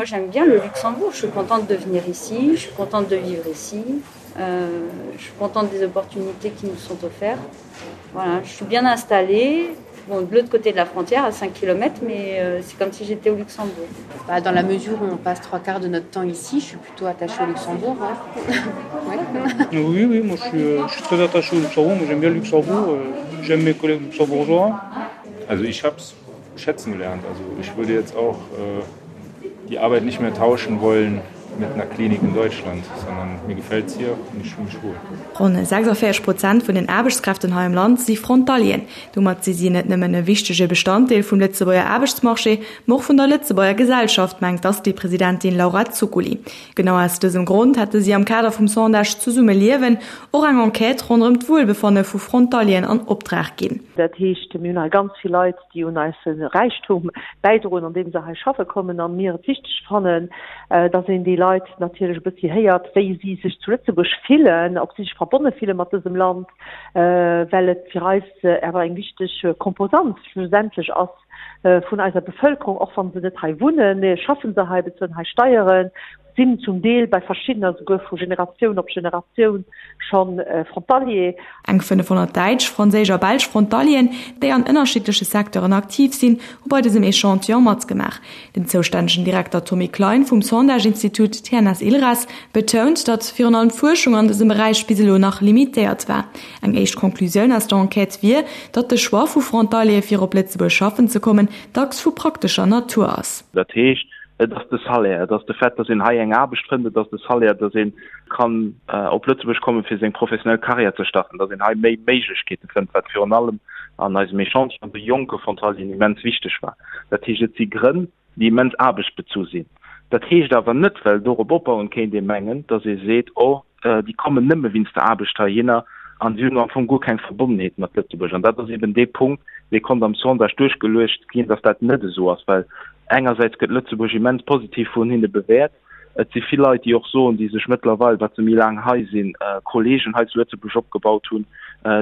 moi j'aime bien le Luxembourg. Je suis contente de venir ici, je suis contente de vivre ici. Euh, je suis contente des opportunités qui nous sont offertes. Voilà, je suis bien installée bon, de l'autre côté de la frontière à 5 km, mais euh, c'est comme si j'étais au Luxembourg. Bah, dans la mesure où on passe trois quarts de notre temps ici, je suis plutôt attachée au Luxembourg. Hein. ouais. Oui, oui, moi je suis, euh, je suis très attaché au Luxembourg, moi j'aime bien le Luxembourg, euh, j'aime mes collègues luxembourgeois. Also ich habe es schätzen gelernt. Also ich würde jetzt auch äh, die Arbeit nicht mehr tauschen wollen mit einer Klinik in Deutschland, sondern mir gefällt es hier und ich fühle mich wohl. Ronn 46 Prozent vun den Aarbechtskräften hei am Land si Frontalieren. Domat si si net nëmmen e wichtege Bestanddeel vum Lëtzebuerger Aarbechtsmarché, ma och vun der Lëtzebuerger Gesellschaft, mengt d'Asti-Presidentin Laura Zuccoli. Genau aus dësem Grond hätte si am Kader vum Sondage Zesumme liewen och eng Enquête ronderëm d'Wuelbefanne vu Frontalieren an Optrag ginn. Dat heescht, mir hunn hei ganz vill Leit, déi un eise Räichtum bäidroen, andeem se hei schaffe kommen, a mir et wichteg fannen, dass een déi Leit natierlech e bëssi héiert, wéi si sech zu Lëtzebuerg fillen, ob si sech verbonne fille mat dësem Land, well et fir eis awer eng wichteg Komposant schlussendlech ass vun eiser Bevëlkerung, och wa se net hei wunnen, schaffen se hei, bezuelen hei Steieren, sinn zum Deel bei verschiddener souguer vu Generatioun op Generatioun scho Frontalier. Eng 500 däitsch, franséisch a belsch Frontalieren, déi an ënnerschiddleche Secteuren aktiv sinn, hu bei dësem Echantillon matgemaach. Den zoustännegen Direkter Tommy Klein vum Sondage-Institut TNS-ILRAS betount, datt virun allem d'Fuerschung an dësem Beräich bis elo nach limitéiert war. Eng éischt Conclusioun aus der Enquête wier, datt de Choix vu Frontaliere fir op Lëtzebuerg schaffen ze kommen, dacks vu praktescher Natur ass. Dat heescht, et ass de Salaire, et ass de Fait, datt een hei eng Aarbecht fënnt, et ass de Salaire, datt ee kann op Lëtzebuerg kommen, fir seng professionell Karriär ze starten, datt een hei méi Méiglechkeete fënnt, wat virun allem an eisem Echantillon de jonke Frontalieren immens wichteg war. Dat heescht, et si Grënn, déi immens aarbechtsbezu sinn. Dat heescht awer net, well dorop opbauend kéint ee mengen, datt ee seet, oh, déi kommen nëmme wéinst der Aarbecht heihinner an si hunn am Fong guer keng Verbonnenheet mat Lëtzebuerg. An dat ass eben dee Punkt, dee konnt am Sondage duerchgeluecht ginn, datt dat net esou ass, well engersäits gëtt Lëtzebuerg immens positiv vun hinne bewäert. Et si vill Leit, déi och soen, déi sech mëttlerweil, wat se méi laang hei sinn, Kolleegen hei zu Lëtzebuerg opgebaut hunn,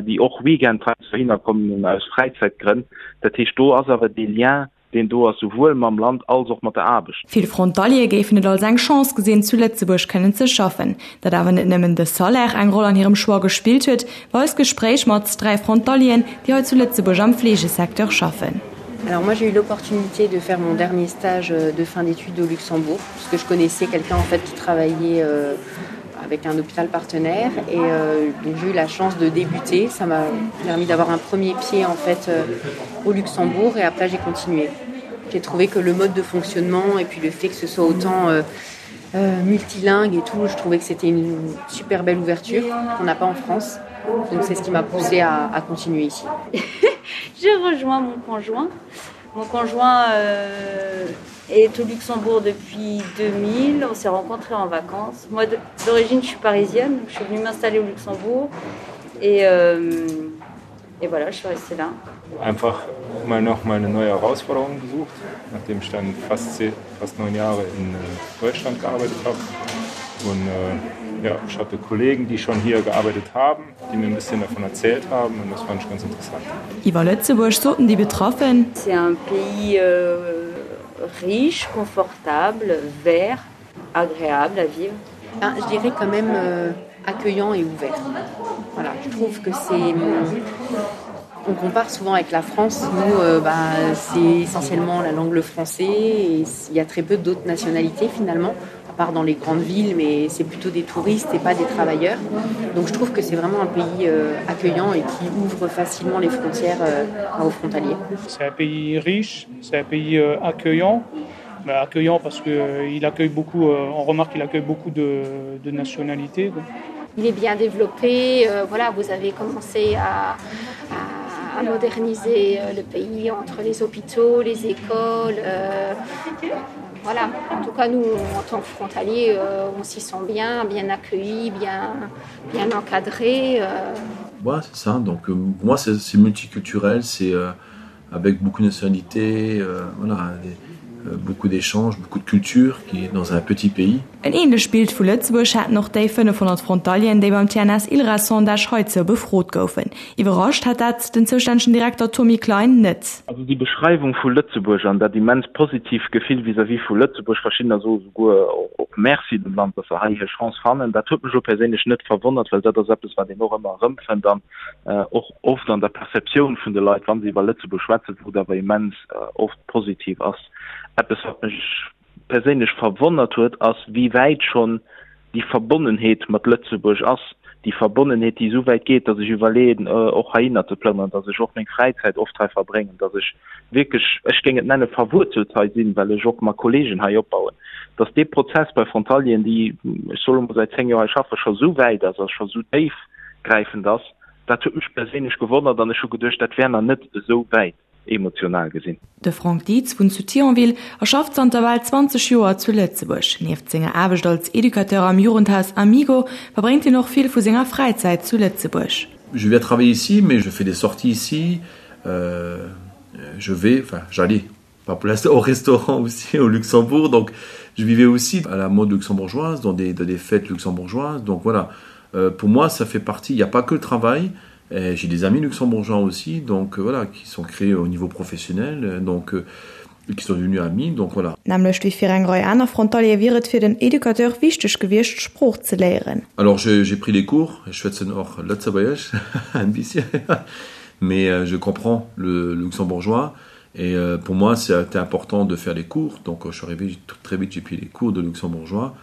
déi och Weekend heiansdo heihinner kommen aus Fräizäitgrënn. Dat heescht, do ass awer dee Lien, deen do ass, souwuel mam Land als och mat der Aarbecht. Vill Frontaliere géifen et als eng Chance gesinn, zu Lëtzebuerg kënnen ze schaffen. Datt awer net nëmmen de Salaire eng Roll an hirem Choix gespillt huet, weist d'Gespréich mat 3 Frontalieren, déi hei zu Lëtzebuerg am Fleegesecteur schaffen. Alors moi j'ai eu l'opportunité de faire mon dernier stage euh, de fin d'études au Luxembourg parce que je connaissais quelqu'un en fait qui travaillait euh, avec un hôpital partenaire et euh, donc j'ai eu la chance de débuter ça m'a permis d'avoir un premier pied en fait euh, au Luxembourg et après j'ai continué j'ai trouvé que le mode de fonctionnement et puis le fait que ce soit autant euh, euh, multilingue et tout je trouvais que c'était une super belle ouverture qu'on n'a pas en France donc c'est ce qui m'a poussé à, à continuer ici j'ai rejoint mon conjoint mon conjoint euh, est au Luxembourg depuis 2000 on s'est rencontré en vacances moi d'origine je suis parisienne je suis venue m'installer au Luxembourg et euh, et voilà je suis restée là einfach mal noch mal eine neue Herausforderung gesucht nachdem ich dann fast fast neun Jahre in äh, Deutschland gearbeitet habe und äh, ja ich hatte Kollegen die schon hier gearbeitet haben die mir ein bisschen davon erzählt haben und das fand ich ganz interessant Iwwer Lëtzebuerg soten déi Betraffen. C'est un pays euh, riche, confortable, vert, agréable à vivre. Ah, je dirais quand même euh, accueillant et ouvert. Voilà, je trouve que c'est on compare souvent avec la France, nous euh, bah, c'est essentiellement la langue le français et il y a très peu d'autres nationalités finalement à part dans les grandes villes mais c'est plutôt des touristes et pas des travailleurs. Donc je trouve que c'est vraiment un pays euh, accueillant et qui ouvre facilement les frontières euh, aux frontaliers. C'est un pays riche, c'est un pays euh, accueillant bah, accueillant parce que euh, il accueille beaucoup euh, on remarque qu'il accueille beaucoup de, de nationalités. Quoi. Il est bien développé, euh, voilà, vous avez commencé à, à, à moderniser euh, le pays entre les hôpitaux, les écoles. Euh, voilà. En tout cas, nous, en tant que frontaliers, euh, on s'y sent bien, bien accueillis, bien, bien encadrés. Euh. Ouais, c'est ça. Donc, euh, pour moi, c'est multiculturel, c'est euh, avec beaucoup de nationalités, euh, voilà, des, beaucoup d'échanges, beaucoup de culture qui est dans un petit pays. En ähnlecht Bild vu Lëtzebuerg haten och déi 500 Frontalieren, déi beim TNS-ILRA-Sondage heizou befrot goufen. Iwwerrascht hat dat den zoustännegen Direkter Tommy Klein net. Also déi Beschreiwung vu Lëtzebuerg an dat immens positiv Gefill vis-à-vis vu Lëtzebuerg, verschiddener soe souguer och Merci dem Land, datt se hei hir Chance fannen, dat huet mech elo perséinlech net verwonnert, well dat ass eppes, wat een och ëmmer erëmfënnt an och oft an der Perceptioun vun de Leit, wa se iwwer Lëtzebuerg schwätzen, wou et awer immens oft positiv ass. Eppes, wat mech perséinlech verwonnert huet, ass wéi wäit schonn déi Verbonnenheet mat Lëtzebuerg ass, déi Verbonnenheet, déi esou wäit geet, datt ech iwwerleeën, och heihinner ze plënneren, datt ech och meng Fräizäit oft hei verbréngen, datt ech wierklech, ech géing et nenne verwuerzelt hei sinn, well ech och mat Kolleegen hei opbauen, datt dee Prozess bei Frontalieren, déi, ech soe mol, säit 10 Joer hei schaffen, scho esou wäit ass a scho esou déifgräifend ass, dat huet mech perséinlech gewonnert an ech hu geduecht, dat wär nach net esou wäit. emotional gesinn. De Franck Dietz wunnt zu Thionville a schafft zanter bal 20 Joer zu Lëtzebuerg. Nieft senger Aarbecht als Educateur am Jugendhaus Amigo verbréngt hien och vill vu senger Fräizäit zu Lëtzebuerg. Je viens travailler ici, mais je fais des sorties ici, je vais, enfin j'allais pas pour l'instant au restaurant aussi au Luxembourg, donc je vivais aussi à la mode luxembourgeoise, dans des, dans des fêtes luxembourgeoises, donc voilà. Euh, pour moi, ça fait partie, il n'y a pas que le travail, j'ai des amis luxembourgeois aussi, donc euh, voilà, qui sont créés au niveau professionnel, euh, donc euh, qui sont devenus amis, donc voilà. Nämlech wéi fir eng Rei aner Frontaliere wier et fir den Educateur wichteg gewiescht, d'Sprooch ze léieren. Alors j'ai pris les cours, ech schwätzen och Lëtzebuergesch ein bisschen, mais je comprends le luxembourgeois et pour moi c'était important de faire les cours, donc je suis arrivé très vite, j'ai pris les cours de luxembourgeois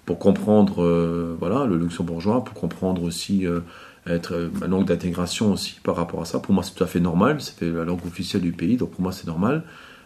pour comprendre euh, voilà, le luxembourgeois, pour comprendre aussi euh, être euh, ma langue d'intégration aussi par rapport à ça. Pour moi c'est tout à fait normal, c'était la langue officielle du pays, donc pour moi c'est normal.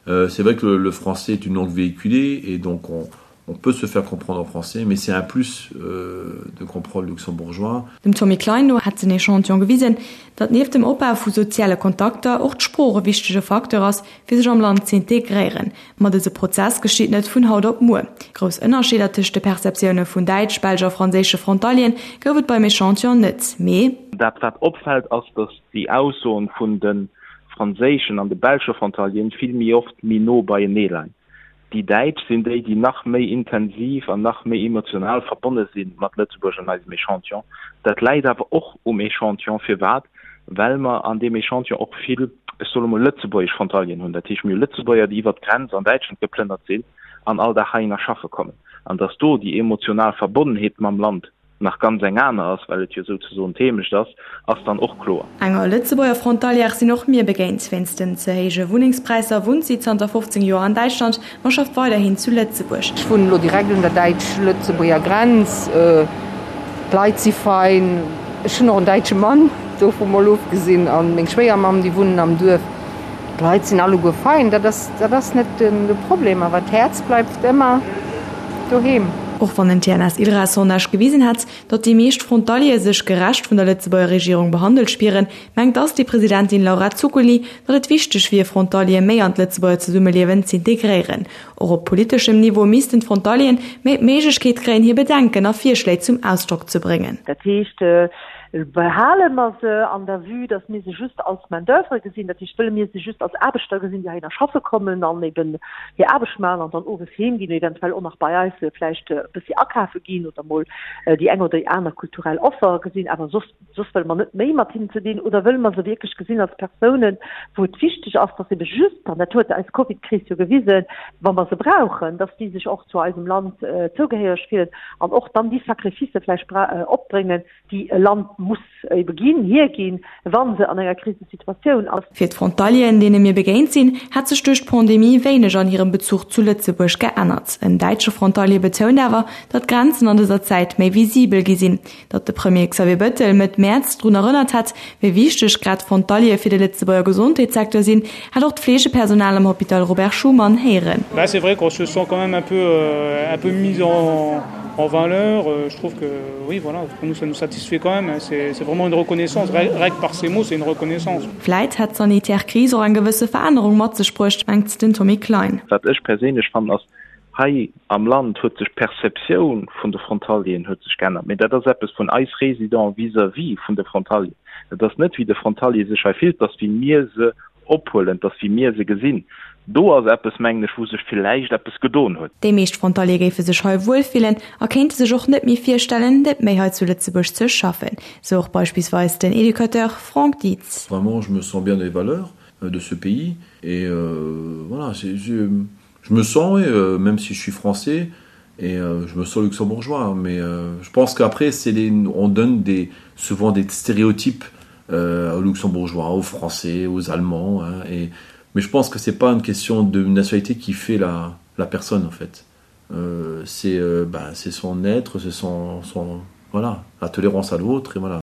Euh, c'est vrai que le, le français est une langue véhiculée et donc on, on peut se faire comprendre en français, mais c'est un plus euh, de comprendre le luxembourgeois. Dem Tommy Klein no hätt den Echantillon gewisen, datt nieft dem Opbau vu soziale Kontakter och d'Sprooch e wichtege Facteur ass, fir sech am Land z'integréieren. Ma dëse Prozess geschitt net vun haut op muer. Grouss Ënnerscheeder tëscht de Perceptioune vun däitsch, belsch a franséische Frontalieren gouf et beim Echantillon net, mee. Dat wat opfält ass, datt déi Aussoen vun de franséischen an de belsche Frontalieren vill méi oft méi no beienee leien. Déi Däitsch sinn déi, déi nach méi intensiv an nach méi emotional verbonne si mat Lëtzebuerg an eisem Echantillon. Dat läit awer och um Echantillon. Firwat? Well mer an deem Echantillon och vill, ech soe mol, lëtzebuergesch Frontalieren hunn. Dat heescht, mir hu Lëtzebuerger, déi iwwert d'Grenz an Däitschland geplënnert sinn an all Dag heihinner schaffe kommen. An datt do déi emotional Verbonnenheet mam Land nach ganz eng aner ass, well et jo souzesoen d'Heemecht ass, ass dann och kloer. Enger Lëtzebuerger Frontalière sinn och mir begéint. Wéinst den ze héije Wunnengspräisser wunnt si zanter 15 Joer an Däitschland, ma schafft weiderhin zu Lëtzebuerg. Ech wunnen elo direkt un der däitsch-lëtzebuerger Grenz. D'Leit si fein. Ech hunn och en däitsche Mann, dovu mol ofgesinn, a meng Schwéiermamm, déi wunnen am Duerf. D'Leit sinn alleguer fein, dat ass, dat ass net de Problem, awer d'Häerz bleift ëmmer doheem. Och wann en TNS-ILRA-Sondage gewisen hätt, datt déi meescht Frontaliere sech gerecht vun der Lëtzebuerger Regierung behandelt spieren, mengt d'Asti-Presidentin Laura Zuccoli, datt et wichteg wier, Frontaliere méi an d'Lëtzebuerger Zesummeliewen z'integréieren. Och op politeschem Niveau missten d'Frontalieren méi d'Méiglechkeet kréien, hir Bedenken a Virschléi zum Ausdrock ze bréngen. Dat heescht, Behale mer se an der Vue, datt mir se just als Main d'oeuvre gesinn, dat heescht, wëlle mir se just als Aarbechter gesinn, déi heihinner schaffe kommen an eben hir Aarbecht maachen an dann owes heem ginn, eventuell och nach bei eis vläicht e bëssi akafe ginn oder mol déi eng oder déi aner kulturell Offer gesinn, awer soss, soss wëlle mer net méi mat hinnen ze dinn? Oder wëlle mer se wierklech gesinn als Persounen, wou et wichteg ass, datt ebe just, an dat huet eis Covid-Kris jo gewisen, wa mer se brauchen, datt déi sech och zu eisem Land zougehéiereg fillen an och dann déi Sacrificë vläicht opbréngen, déi e Land muss ebe ginn, hierginn, wa se an enger Krisesituatioun ass. Fir d'Frontalieren, deene mir begéint sinn, hätt sech duerch d'Pandemie wéineg an hirem Bezuch zu Lëtzebuerg geännert. En däitsche Frontalier betount awer, datt d'Grenzen an dëser Zäit méi visibel gi sinn. Datt de Premier Xavier Bettel Mëtt Mäerz drun erënnert hätt, wéi wichteg grad d'Frontaliere fir de Lëtzebuerger Gesondheetssecteur sinn, hätt och d'Fleegepersonal am Hôpital Robert Schuman héieren. Bah c'est vrai qu'on se sent quand même un peu un peu mis en en valeur, je trouve que oui voilà, pour nous ça nous satisfait quand même, c'est c'est vraiment une reconnaissance, rien que par ces mots c'est une reconnaissance. Vläit hätt d'sanitär Kris och eng gewësse Verännerung mat sech bruecht, mengt den Tommy Klein. Wat ech perséinlech fannen ass, hei am Land huet sech d'Perceptioun vun de Frontalieren huet sech geännert, mee dat ass eppes vun eis Résidents vis-à-vis vun de Frontalieren. Et ass net wéi de Frontalier sech hei fillt, et ass wéi mir se ophuelen, et ass wéi mir se gesinn. Do ass eppes, mengen ech, wou sech villäicht eppes gedon huet. Déi meescht Frontaliere géife sech hei wuel fillen a kéinte sech och net méi virstellen, net méi hei zu Lëtzebuerg ze schaffen, sou och beispillsweis den Educateur Franck Dietz. Vraiment, je me sens bien dans les valeurs de ce pays et voilà, je me sens, oui, même si je suis français et je me sens luxembourgeois, mais je pense qu'après c'est les, on donne des, souvent des stéréotypes aux luxembourgeois, aux français, aux allemands hein, et mais je pense que c'est pas une question de nationalité qui fait la, la personne en fait. Euh, c'est euh, bah, son être, c'est son, son voilà, la tolérance à l'autre et voilà.